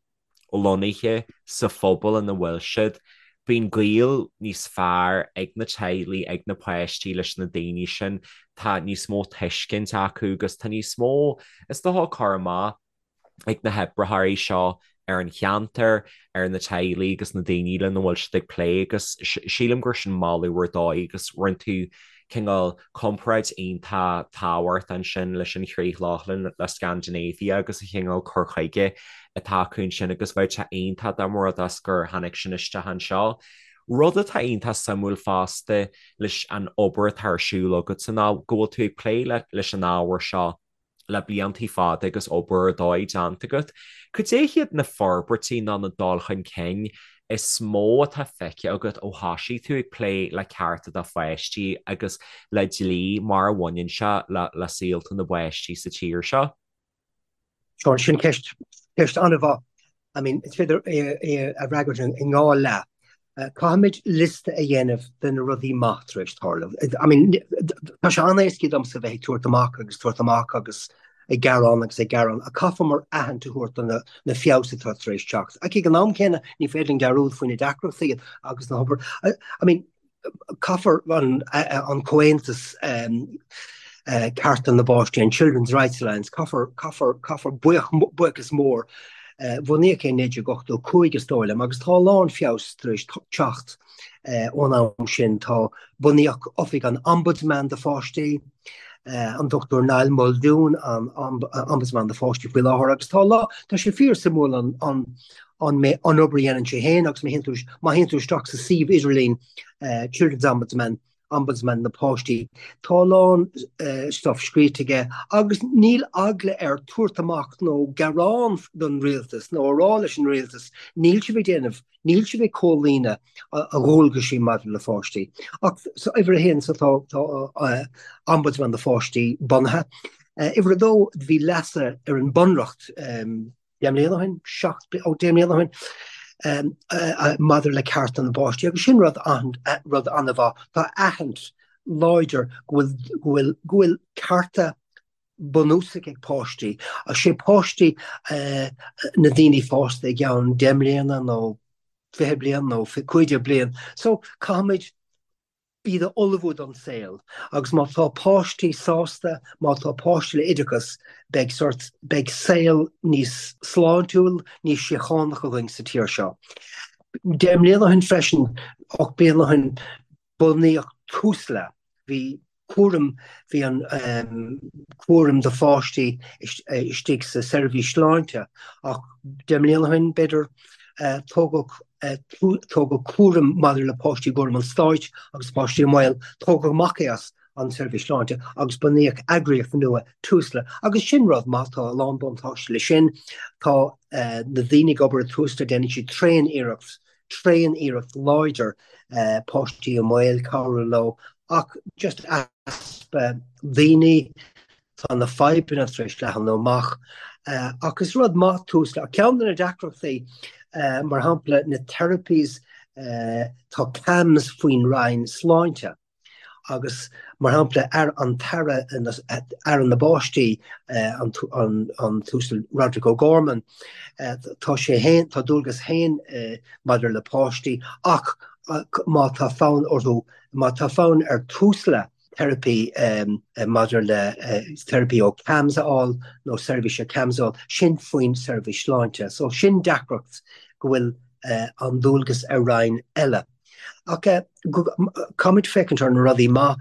lonnaithe sa phobal ina bhfuil siad. Bíonn gaol níos fearr ag na teaghlaigh, ag na páistí leis na daoine sin, tá níos mó tuiscint acu agus tá níos mó, is dócha, cur amach ag na hoibritheoirí seo ar an cheantar, ar na teaghlaigh agus na daoine lena bhfuil siad ag plé agus sílim gur sin moladh ar dóigh agus rinne tú cineál comparáid iontach tábhachtach ansin leis an Chríoch Lochlann, le Scandinavia agus an chineál cur chuige atá acu ansin agus bheadh sé iontach dá mba rud é gur tháinig sin isteach anseo. Rud atá iontach suimiúil fosta leis an obair atá ar siúl agatsa ná go bhfuil tú ag plé leis an ábhar seo le bliantaí fada agus obair ar dóigh déanta agat. Cad é hiad na forbairtí nó na dul chun cinn is mó atá feicthe agat ó thosaigh tú ag plé le cearta do pháistí agus le dlí mar a bhaineann sé le saolta na bpáistí sa tír seo? Seán, sin ceist, ceist an-mhaith. I mean, is féidir é a fhreagairt i ndhá leath. Caithfimid liosta a dhéanamh de na rudaí maith tar éis tarlú. I mean, tá sé an-éasca domsa bheith ag tabhairt amach agus tabhairt amach agus ag gearán agus ag gearán, ach caithfear aithint a thabhairt do na na feabhas atá tar éis teacht. Ach ag an am céanna, ní féidir linn dearúd faoi na deacrachtaí agus na hobair. I mean, Caithfear an Comhaontas Cearta na bPáistí, an Children's Rights Alliance, caithfear, caithfear, caithfear buíochas mór, bunaíodh é in 1985 is dóigh liom, agus tá a lán feabhas tar éis teacht ón am sin. Tá, bunaíodh Oifig an Ombudsman do Pháistí, an Dr Niall Muldoon an Ombudsman do Pháistí faoi láthair, agus tá, tá sé fíor suimiúil an, an, an obair a dhéanann sé féin agus má théann tú isteach sa suíomh idirlín Children's Ombudsman. Ombudsman na bPáistí. Tá a lán stuff scríte aige agus níl eagla air tabhairt amach nó gearán don rialtas nó a rá leis an rialtas níl sibh ag déanamh, níl sibh ag comhlíonadh a dhualgaisí maidir le pháistí. Ach so uimhir a haon so tá tá Ombudsman na Pháistí bunaithe. Uimhir a dó bhí leasuithe ar an Bunreacht 10 mbliana ó shin, 7, ó 10 mbliana ó shin, maidir le cearta na bpáistí agus sin rud rud an-mhaith. Tá aithint láidir go bhfuil go bhfuil go bhfuil cearta bunúsach ag páistí. Sé páistí na daoine fásta i gceann 10 mbliana nó 20 bliain nó 15 bliain. So caithfimid iad a ullmhú don saol agus má tá páistí sásta, má tá páistí le oideachas, beidh sort, beidh saol níos sláintiúil, níos síochánach againn sa tír seo. 10 mbliana ó shin freisin, 8 bliana ó shin, bunaíodh Tusla. Bhí cúram, bhí an cúram do pháistí istigh sa seirbhís sláinte ach 10 mbliana ó shin, b'fhéidir, tógadh tógadh cúram maidir le páistí i gcúram an stáit agus páistí i mbaol, tógadh amach é as an tseirbhís sláinte agus bunaíodh eagraíocht nua, Tusla. Agus sin rud maith, tá a lán buntáiste leis sin. Tá na daoine ag obair i Tusla, déanann siad tréan-iarracht, tréan-iarracht láidir páistí i mbaol, cabhrú leo ach just easpa daoine, Tá na fadhbanna tar éis leathnú amach ach is rud maith Tusla. Ach ceann de na deacrachtaí, mar shampla na therapies, tá CAMHS faoin Roinn Sláinte agus mar shampla an tAire, Aire na bPáistí, an tUasal Roderic O'Gorman, tá sé féin, tá dualgas féin maidir le páistí ach má tá fonn orthu, má tá fonn ar Tusla, teiripí maidir le teiripí ó CAMHS a fháil nó seirbhís ó CAMHS a fháil, sin faoin seirbhís sláinte. So sin deacracht go bhfuil an dualgas ar roinn eile. Ach caithfimid féachaint ar na rudaí maith,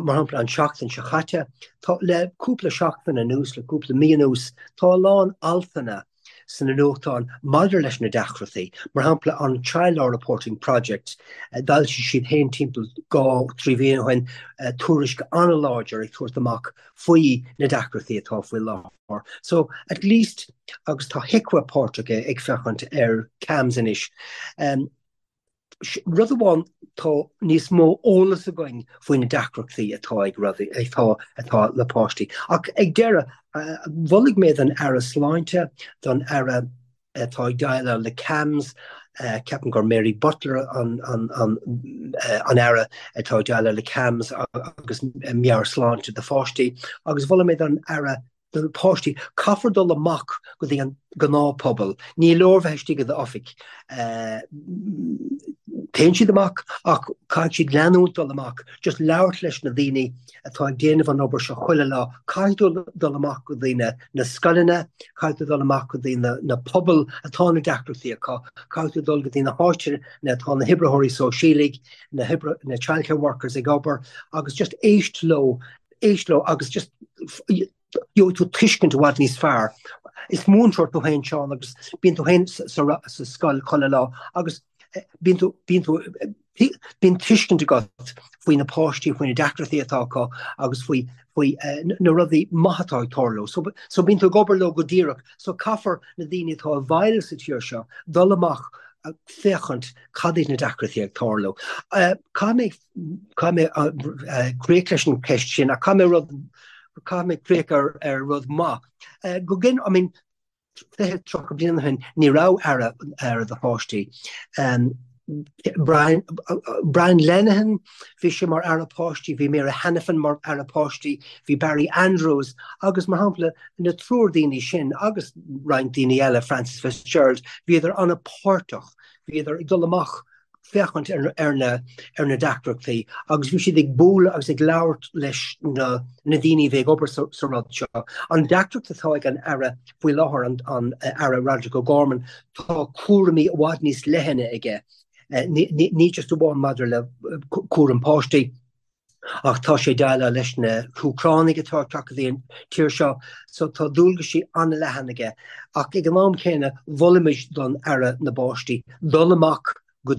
mar shampla an tseachtain seo chaite, tá le cúpla seachtain anuas, le cúpla mí anuas, tá a lán altanna sna nuachtáin maidir leis na deacrachtaí, mar shampla an Child Law Reporting Project, d'fhoilsigh siad féin timpeall 2, 3 mhí ó shin tuairisc an-láidir ag tabhairt amach faoi na deacrachtaí atá faoi láthair. So, at least, agus tá HIQA páirteach ag féachaint ar CAMHS anois. Rud amháin, tá níos mó eolas againn faoi na deacrachtaí atá ag rudaí, atá, atá le páistí. Ach ag deireadh, mholfaidh mé don Aire Sláinte, don Aire atá ag déileáil le CAMHS, ceapaim gur Mary Butler an, an, an, an Aire atá ag déileáil le CAMHS agus meabhairshláinte do pháistí, agus mholfaidh mé don Aire do na páistí. Caithfear dul amach go dtí an gnáthphobal. Ní leor bheith istigh i d'oifig. Téann siad amach ach caithfidh siad leanúint dul amach, just labhairt leis na daoine atá ag déanamh an obair seo chuile lá. Caithfidh tú dul amach go dtí na na scoileanna, caithfidh tú dul amach go dtí na na pobail atá na deacrachtaí acu, caithfidh tú dul go dtí na háiteanna atá na hoibritheoirí sóisialaigh, na hoibre na childcare workers ag obair agus just éist leo éist leo agus just gheobhaidh tú tuiscint i bhfad níos fearr. Is múinteoir tú féin, Seán, agus bíonn tú féin sa scoil chuile lá agus bíonn tú, bíonn tú, bíonn tuiscint agat faoi na páistí, faoi na deacrachtaí atá acu agus faoi, faoi na rudaí maithe atá ag tarlú. So, so bíonn tú ag obair leo go díreach. So caithfear na daoine atá i bhfeighil sa tír seo dul amach féachaint cad iad na deacrachtaí ag tarlú. Caithfidh mé Caithfidh mé críoch leis an cheist sin ach caithfidh mé rud, caithfidh mé críoch ar ar rud maith. Go gin, I mean, 20, 30 bliain ó shin ní raibh aire aire do pháistí. Brian, Brian Lenihan, bhí sé mar aire páistí, bhí Mary Hanafin mar aire páistí, bhí Barry Andrews agus mar shampla na triúr daoine sin agus roinnt daoine eile, Frances Fitzgerald, bhíodar an-pháirteach, bhíodar ag dul amach féachaint ar na deacrachtaí agus bhí siad ag bualadh agus ag labhairt leis na daoine a bhí ag obair sa rud seo. An deacracht atá ag an Aire faoi láthair, an Aire Roderic O'Gorman, tá cúraimí i bhfad níos leithne aige, ní just amháin maidir le cúram páistí, Ach tá sé ag déileáil leis na hÚcránaigh atá ag teacht go dtí an tír seo, so tá dualgaisí an-leathan aige. Ach ag an am céanna, mholfaimis don Aire na bPáistí dul amach go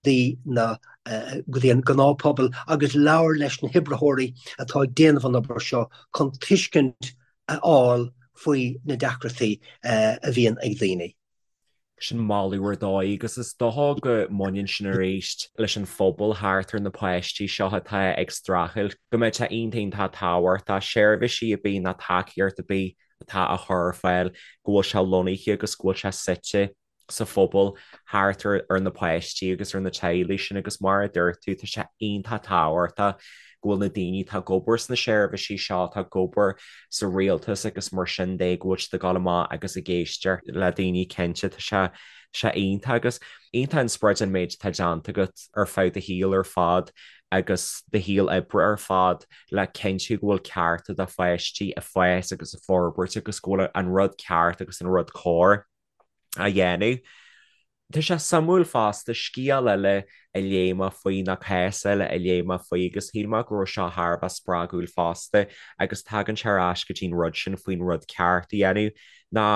dtí na. go dtí an gnáthphobal agus labhair leis na hoibritheoirí atá ag déanamh an obair seo chun tuiscint a fháil faoi na deacrachtaí a bhíonn ag daoine. Sin moladh ar dóigh agus is dócha go mbaineann sin arís leis an phobal thart ar na páistí seo atá ag streachailt, go mbeadh sé iontach iontach tábhachtach seirbhísí ar bith nó tacaíocht ar bith atá á chur ar fáil, go bhfuil sé lonnaithe agus go bhfuil sé suite sa phobal thart ar na páistí agus ar na teaghlaigh sin agus mar a dúirt tú, tá sé iontach tábhachtach go bhfuil na daoine atá ag obair sna seirbhísí seo, atá ag obair sa rialtas agus mar sin de, go bhfuil siad ag dul amach agus ag éisteacht le daoine cinnte, tá sé sé iontach agus iontach inspioráideach an méid atá déanta agat ar feadh do shaoil ar fad agus do shaol oibre ar fad le cinntiú go bhfuil cearta do pháistí ag fás agus ag forbairt agus go bhfuil an rud ceart agus an rud cóir á dhéanamh. Tá sé suimiúil fosta, scéal eile a léigh mé faoi nó cás eile a léigh mé faoi agus shíl mé go raibh seo thar a bheith spreagúil fosta agus tagann sé ar ais go dtí an rud sin faoin rud ceart a dhéanamh ná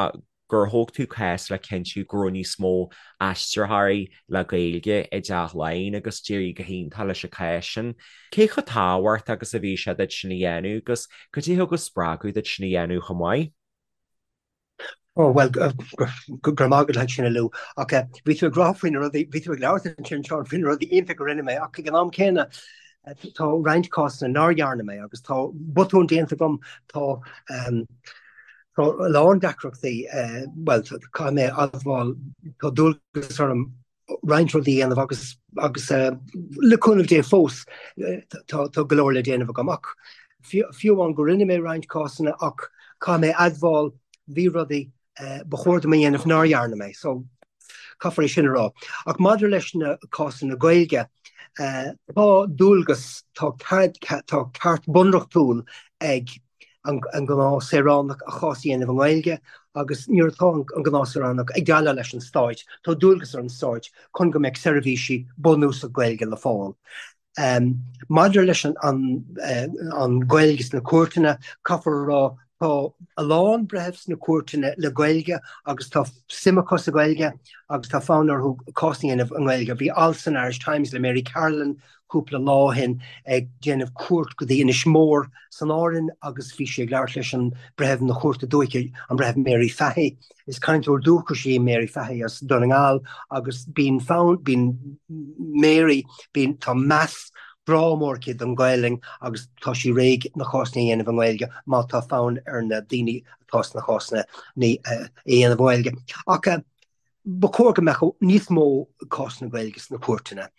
gur thóg tú cás le cinntiú go raibh níos mó aistritheoirí le Gaeilge i dTeach Laighean agus d'éirigh go hiontach leis an cás sin. Cé chomh tábhachtach agus a bhí sé duit sin a dhéanamh agus cad é a thug an spreagadh duit sin a dhéanamh chomh maith? Ó, bhuel, go raibh maith agat as sin a Lou. Ach bhí tú ag rá faoi na rudaí, bhí tú ag labhairt ansin, Seán, faoi na rudaí iontacha a rinne mé, ach ag an am céanna, tá roinnt cásanna nár dhearna mé agus tá botúin déanta agam, tá tá a lán deacrachtaí, bhuel, caithfidh mé a admháil, tá dualgas orm roinnt rudaí a dhéanamh agus agus le cúnamh Dé fós tá tá go leor le déanamh agam ach fiú amháin go rinne mé roinnt cásanna ach caithfidh mé admháil bhí rudaí ba chóir dom a dhéanamh nár dhearna mé so caithfear é sin a rá. Ach maidir leis na cásanna Gaeilge tá dualgas tá tá ceart bunreachtúil ag an gnáth saoránach a chás a dhéanamh i nGaeilge agus nuair atá an gnáth saoránach ag déileáil leis an stáit, tá dualgas ar an stáit chun go mbeadh seirbhísí bunúsach Gaeilge le fáil. Maidir leis an Ghaeilge sna cúirteanna, caithfear a rá tá a lán breitheamh sna cúirteanna le Gaeilge agus tá suim acu sa Ghaeilge agus tá fonn orthu cás a dhéanamh i nGaeilge. Bhí alt san Irish Times le Mary Carolan cúpla lá ó shin ag déanamh cuairt go dtí Inis Mór san Árainn agus bhí sí ag labhairt leis an Breitheamh na Cúirte Dúiche, an Breitheamh Mary Fahy. Is cainteoir dúchais í Mary Fahy as Dún na nGall agus bíonn fonn, bíonn Mary, bíonn, tá meas, grá mór aici don Ghaelainn agus tá sí réidh na cásanna a dhéanamh i nGaeilge má tá fonn ar na daoine atá sna cásanna a dhéanamh i nGaeilge. Ach Ba chóir go mbeadh níos mó cásanna Gaeilge sna cúirteanna.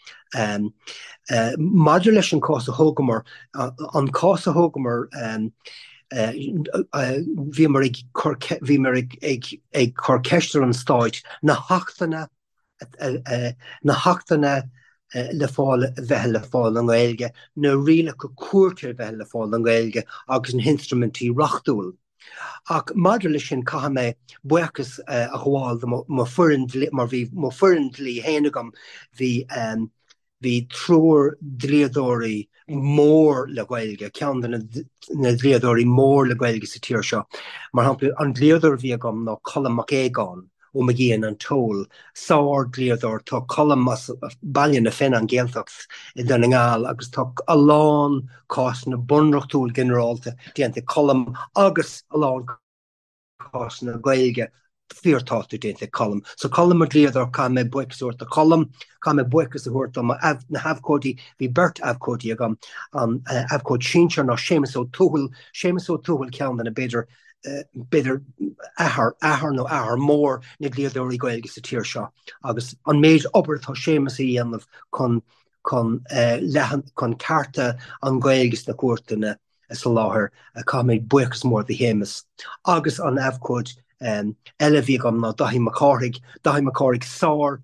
Maidir leis an cás a thógamar, an cás a thógamar, bhíomar ag cur, bhíomar ag cur ceist ar an Stáit na hachtanna, na hachtanna le fáil, a bheith le fáil i nGaeilge, na rialacha cúirte a bheith le fáil i nGaeilge agus na hinstruimintí reachtúil. Ach maidir leis sin, caithfidh mé buíochas a ghabháil do mo foireann dlí, mar bhí mo foireann dlí féin agam, bhí bhí triúr dlíodóirí mór le Gaeilge, ceann de na dlíodóirí mór le Gaeilge sa tír seo. Mar shampla, an dlíodóir a bhí agam ná Colm Mac Aogáin. Ó McGeehan and Toal, sár-dhlíodóir. Tá Colm as Baile na Finne, an Ghaeltacht i nDún na nGall agus tá a lán cásanna bunreachtúil ginearálta déanta ag Colm agus a lán cásanna Gaeilge fíorthábhachtach déanta ag Colm. So Colm mo dhlíodóir, caithfidh mé buíochas a thabhairt do Cholm, caithfidh mé buíochas a thabhairt do na habhcóidí, bhí beirt abhcóidí agam, an abhcóid sinsir ná Séamus Ó Tuathail, Séamus Ó Tuathail ceann de na b'fhéidir b'fhéidir athair, athair nó athair mór na dlíodóirí Gaeilge sa tír seo agus an méid obair atá Séamus a dhéanamh chun chun leathan chun cearta an Ghaeilge sna cúirteanna a soláthar, caithfidh mé buíochas mór do Shéamus. Agus an abhcóid eile a bhí agam ná Daithí Mac Cárthaigh, Daithí Mac Cárthaigh sár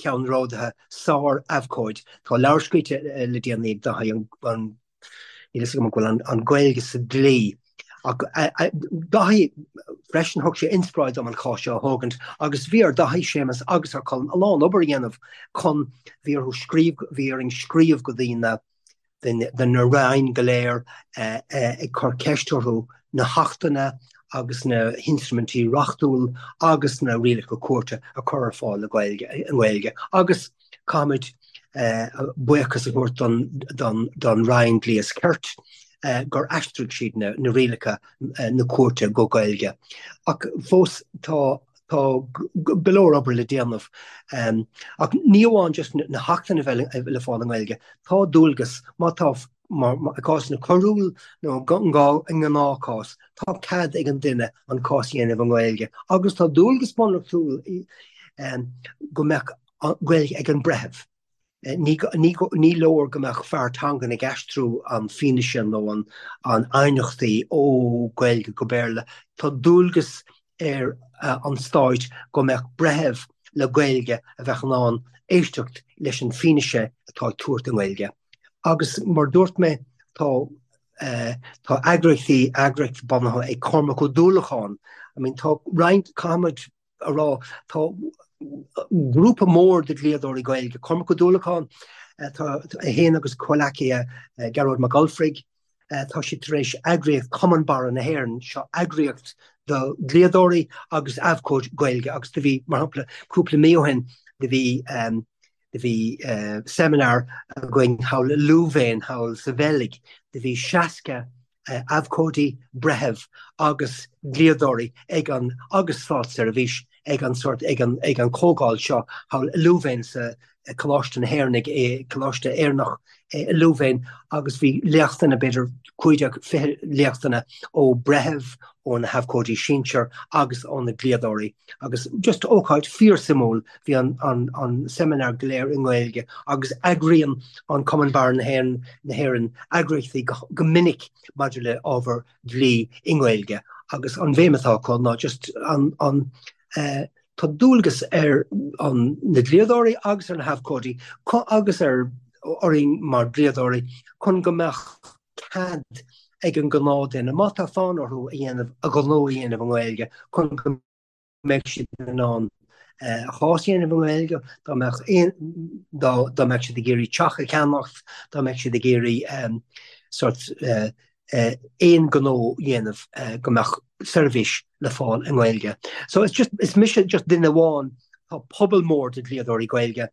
ceannródaithe, sár abhcóid. Tá leabhar scríte le déanaí ag Daithí an Níl fhios agam an bhfuil an Ghaeilge sa dlí. Ach Daithí freisin, thug sé inspioráid dom an cás seo a thógaint agus bhí ar Daithí, Séamus agus ar Colm a lán obair a dhéanamh chun, bhí orthu scríobh, bhí orainn scríobh go dtí na, de na roinn go léir ag cur ceist orthu na hachtanna agus na hinstruimintí reachtúil agus na rialacha cúirte a chur ar fáil i nGaeilge agus caithfimid. Buíochas a thabhairt don Roinn Dlí is Cirt gur aistrigh siad na rialacha na cúirte go Gaeilge. Ach fós tá tá go leor obair le déanamh. Ach ní amháin just na hachtanna a bheith le fáil i nGaeilge, tá dualgas, má tá i gcásanna coiriúil nó i ngnáthchás, tá cead ag an duine an cás a dhéanamh i nGaeilge agus tá dualgas bunreachtúil go mbeadh Gaeilge ag an breitheamh. Ní leor go mbeadh fear teangan ag aistriú an fianaise nó an aighneachtaí ó Gaeilge go Béarla. Tá dualgas ar an stáit go mbeadh breitheamh le Gaeilge a bheadh in ann éisteacht leis an fianaise atá ag tabhairt i nGaeilge. Agus mar dúirt mé, tá tá eagraíochtaí, eagraíocht bunaithe ag Cormac Ó Dúlacháin, I mean tá roinnt, caithfimid a rá, tá grúpa mór de dhlíodóirí Gaeilge, Cormac Ó Dúlacháin, tá é féin agus comhleacaithe Gearóid Mac Ulfraigh, tá siad tar éis eagraíocht Cumann Barra na hÉireann, seo eagraíocht do dhlíodóirí agus abhcóidí Gaeilge agus do bhí, mar shampla, cúpla mí ó shin, do bhí Do bhí seimineár againn thall i Louvain, thall sa Bheilg. Do bhí 60 abhcóidí, breitheamh agus dlíodóirí ag an, agus státseirbhís ag an sort, ag an, ag an comhdháil seo thall i Louvain sa Coláiste na hÉireann, ag Coláiste Éireannach i Louvain agus bhí léachtanna, b'fhéidir 15, 20 léachtanna ó breitheamh, ó na habhcóidí sinsir agus ó na dlíodóirí agus just ócáid fíorsuimiúil. Bhí an an seimineár go léir i nGaeilge agus eagraíonn an Cumann Barra na hÉireann eagraíochtaí go minic maidir le ábhar dlí i nGaeilge agus an bhéim atá acu ná just an an tá dualgas ar an na dlíodóirí agus ar na habhcóidí agus ar orainn mar dhlíodóirí chun go mbeadh cead ag an gnáthduine, má tá fonn orthu a dhéanamh, a ghnó a dhéanamh i nGaeilge chun go mbeidh siad in ann a chás a dhéanamh i nGaeilge, dá mbeadh aon, dá, dá mbeadh siad ag iarraidh teach a cheannacht, dá mbeadh siad ag iarraidh sort aon ghnó a dhéanamh go mbeadh seirbhís le fáil i nGaeilge. So it's just, is mise just duine amháin, tá pobal mór de dhlíodóirí Gaeilge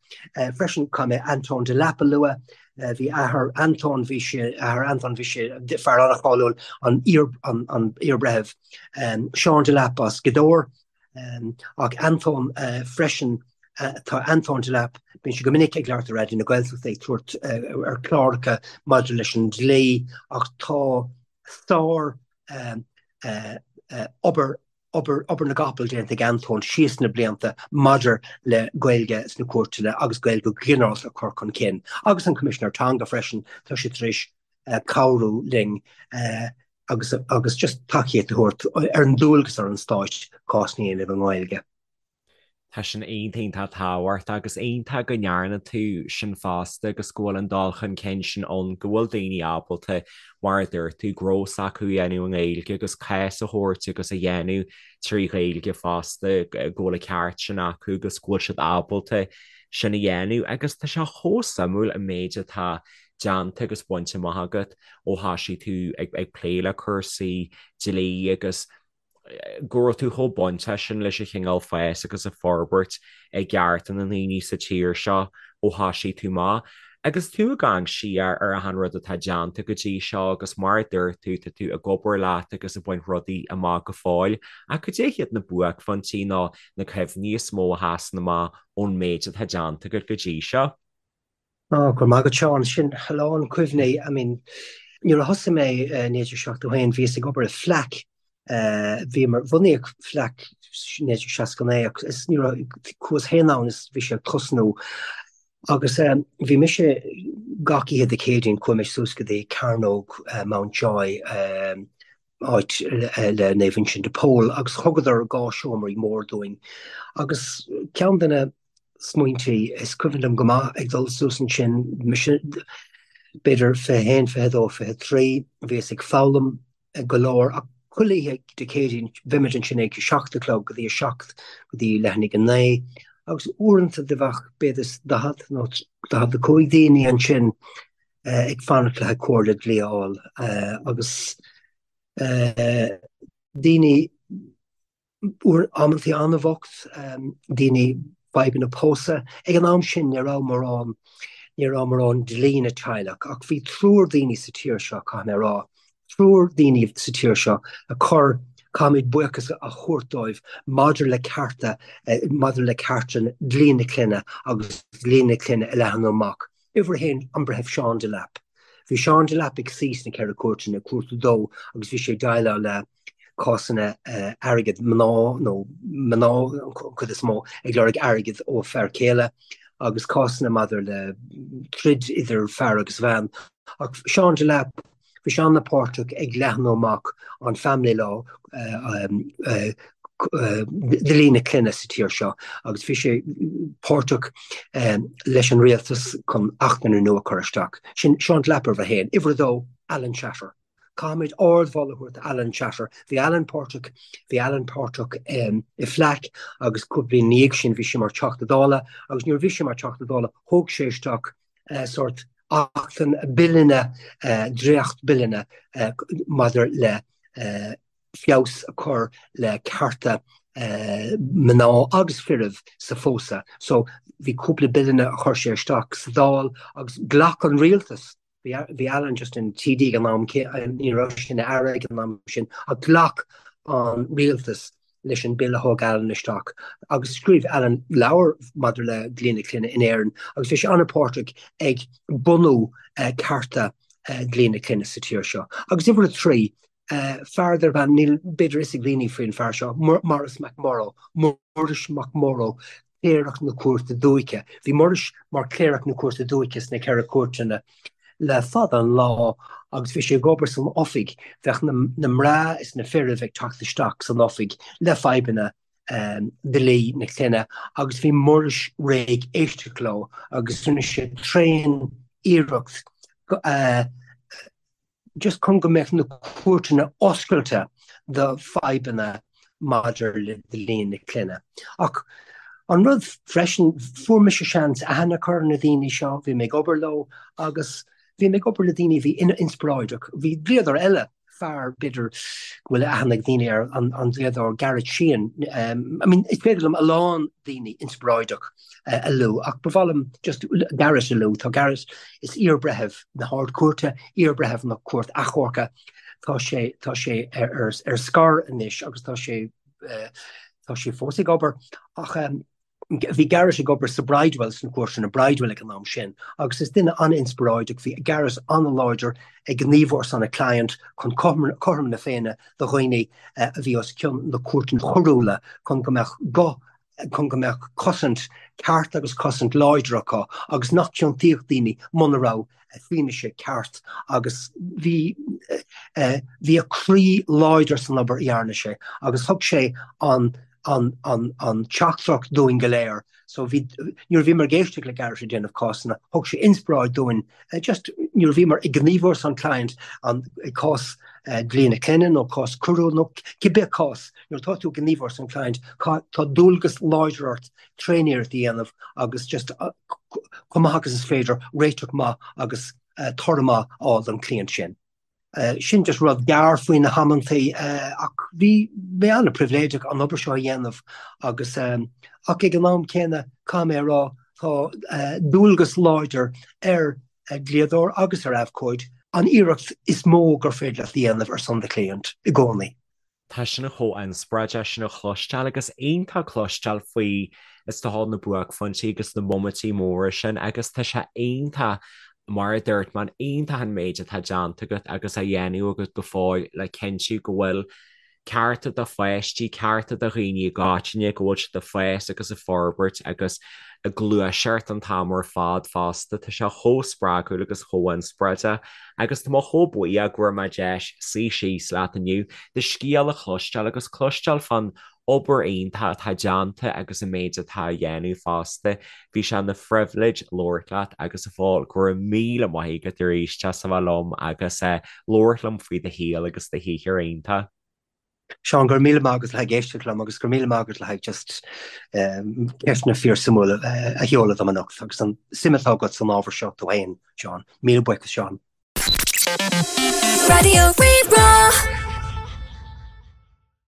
freisin, caithfidh mé Antóin Delap a lua, bhí athair Antóin, bhí sé, athair Antóin, bhí sé fear an-cháiliúil, an iar, an, an iarbhreitheamh Seán Delap as Gaoth Dobhair, ach Antóin freisin, tá Antóin Delap, bíonn sé go minic ag labhairt ar Raidió na Gaeltachta ag tabhairt ar chláracha maidir leis an dlí ach tá sár obair, obair, obair na gcapall déanta ag Antóin síos na blianta maidir le Gaeilge sna cúirteanna agus Gaeilge go ginearálta a chur chun cinn. Agus an Coimisinéir Teanga freisin, tá sé tar éis cabhrú linn agus agus just tacaíocht a thabhairt ar an dualgas ar an stáit cásanna a dhéanamh i nGaeilge. Tá sin iontach tábhachtach agus iontach go ndearna tú sin fosta agus go bhfuil an dul chun cinn sin ann, go bhfuil daoine ábalta, mar a dúirt tú, gnó s'acu a dhéanamh i nGaeilge agus cás a thabhairt agus a dhéanamh trí Ghaeilge fosta, go bhfuil an ceart sin acu agus go bhfuil siad ábalta sin a dhéanamh. Agus tá sé chomh suimiúil an méid atá déanta agus bainte amach agat ó thoisigh tú ag plé le cúrsaí dlí agus go raibh tú chomh bainteach sin leis an chineál fás agus an forbairt i gcearta na ndaoine sa tír seo ó thoisigh tú amach. Agus tú ag amharc siar ar achan rud atá déanta go dtí seo agus mar a dúirt tú, tá tú ag obair leat agus ag baint rudaí amach go fóill, ach cad é hiad na buaicphointí nó na cuimhní is mó a sheasann amach ón méid atá déanta agat go dtí seo? Ó, go raibh maith agat, Seán. Sin a lán cuimhní. I mean, nuair a thosaigh mé i 1971, bhíos ag obair i FLAC. Bhíomar, bhunaíodh FLAC 1969 ach is ní raibh, chuas féin ann is bhí sé ag tosnú. Agus bhí mise gach oíche Dé Céadaoin, chuaigh mé suas go dtí Cearnóg Mountjoy, áit le Naomh Uinseann de Pól agus thugadar dhá seomraí mór dúinn. Agus ceann de na smaointí. Is cuimhin liom go maith ag dul suas ansin, mise b'fhéidir 21, 22, 23, bhíos ag foghlaim go leor ach chuile oíche Dé Céadaoin bheimid ansin ag 7 a chlog go dtí a 7 go dtí leath i ndiaidh a 9 agus uaireanta do bheadh b'fhéidir 40 nó 45 daoine ansin ag fanacht le haghaidh comhairle dlí a fháil agus daoine Uair amantaí an-bhocht, daoine fadhbanna pósadh. Ag an am sin ní raibh mórán. ní raibh mórán dlí na teaghlach ach bhí triúr daoine sa tír seo, caithfidh mé a rá, triúr daoine sa tír seo a chuir, caithfimid buíochas a thabhairt dóibh maidir le cearta, maidir le cearta dlí na clainne agus dlí na clainne a leathnú amach. Uimhir a haon, an Breitheamh Seán Delap. Bhí Seán Delap ag suí sna Ceithre Cúirteanna, Cúirt a Dó, agus bhí sé ag déileáil le cásanna airgid, mná nó mná an chuid is mó ag lorg airgid ó fear céile agus cásanna maidir le troid idir fear agus bhean. Ach Seán Delap, bhí sé an-pháirteach ag leathnú amach an family law, dlí na clainne sa tír seo agus bhí sé páirteach leis an rialtas chun achtanna nua a chur isteach. Sin Seán Delap uimhir a haon. Uimhir a dó, Alan Shatter. Caithfimid ardmholadh a thabhairt do Alan Shatter. Bhí Alan páirteach, bhí Alan páirteach i FLAC agus cúpla bliain ina dhiaidh sin bhí sé mar Teachta Dála agus nuair a bhí sé mar Teachta Dála thóg sé isteach sórt achtanna, billeanna, dréacht-bhilleanna maidir le feabhas a chur le cearta mná agus firbh sa phósadh. So bhí cúpla billeanna a chuir sé isteach sa Dáil agus ghlac an rialtas Bhí Alan just ina TD ag an am, ní raibh sé ina aire ag an am sin, ach ghlac an rialtas leis an bille a thóg Alan isteach agus scríobh Alan leabhar maidir le dlí na clainne in Éirinn agus bhí sé an-pháirteach ag bunú cearta dlí na clainne sa tír seo. Agus uimhir a 3, fear darb ainm, níl b'fhéidir fhios ag daoine faoin fear seo, Maurice McMorrow, Muiris Mac Murrough, Cléireach na Cúirte Dúiche. Bhí Muiris mar Chléireach na Cúirte Dúiche sna Ceithre Cúirteanna le fada an lá agus bhí sé ag obair san oifig. Bheadh na mná is na firbh ag teacht isteach san oifig le fadhbanna dlí na clainne agus bhí Muiris réidh éisteacht leo agus rinne sé tréan iarracht just chun go mbeadh na cúirteanna oscailte do fadhbanna maidir le dlí na clainne. Ach an rud freisin, fuair mise seans aithne a chur ar na daoine seo, bhí mé ag obair leo agus bhí mé ag obair le daoine a bhí inspioráideach. Bhí dlíodóir eile, fear b'fhéidir go bhfuil aithne ag daoine air, an dlíodóir Garrett Sheehan. I mean, is féidir liom a lán daoine inspioráideach a lua ach ba mhaith liom just Garrett a lua. Tá Garrett, is iar-bhreitheamh na hArd-Chúirte, iar-bhreitheamh na Cúirt Achomhairc, tá sé, tá sé ar, ar scor anois agus tá sé, tá sé fós ag obair ach bhí Garrett ag obair sa Bridewell, sna cúirteanna Bridewell ag an am sin agus is duine an-inspioráideach, bhí Garrett an-láidir ag gníomhú ar son a client chun cothrom na Féinne do dhaoine a bhí os cionn na cúirteanna coiriúla chun go mbeadh guth chun go mbeadh cosaint ceart agus cosaint láidir acu agus nach ciontaíodh daoine muna raibh fianaise ceart agus bhí bhí a chroí láidir san obair a dhearna sé agus thug sé an an an an teachtaireacht dúinn go léir so bhí nuair a bhíomar ag éisteacht le Garrett ag déanamh cásanna thug sé inspioráid dúinn just nuair a bhíomar ag gníomhú ar son client an cás dlí na clainne nó cás coiriúil nó cibé cás Nuair atá tú ag gníomhú ar son client, tá dualgas láidir ort tréaniarracht a dhéanamh agus just chomh maith agus is féidir réiteach maith agus toradh maith a fháil don chliant sin. Sin just rud gearr faoi na hamantaí ach bhí mé an-pribhléideach an obair seo a dhéanamh agus ach ag an am céanna caithfidh mé a rá tá dualgas láidir ar dhlíodóir agus ar abhcóid an iarracht is mó gur féidir leat a dhéanamh ar son do chliant i gcónaí. Tá sin chomh inspioráideach sin a chloisteáil agus iontach cloisteáil faoi is dócha na buaicphointí agus na móiminti móra sin agus tá sé iontach mar a dúirt mé iontach an méid atá déanta agat agus á dhéanamh agat go fóill le cinntiú go bhfuil cearta do pháistí, cearta do dhaoine i gcoitinne, go bhfuil siad ag fás agus ag forbairt agus ag gluaiseacht an t-am ar fad fosta. Tá sé chomh spreagúil agus chomh inspioráideach. Agus tá mé chomh buíoch go bhfuair mé deis suí síos leat inniu, do scéal a chloisteáil agus cloisteáil fán obair iontach atá déanta agus an méid atá á dhéanamh fosta. Bhí sé ina phribhléid labhairt leat agus a Phóil, go raibh míle maith agat arís as a bheith liom agus labhairt liom faoi do shaol agus do shaothar iontach. Seán, go raibh míle maith agat le haghaidh éisteacht liom agus go raibh míle maith agat le haghaidh just ceisteanna fíorsuimiúla a sheoladh dom anocht agus an suim atá agat san ábhar seo tú féin, Seán. Míle buíochas, Seán. Raidió Rí-Rá.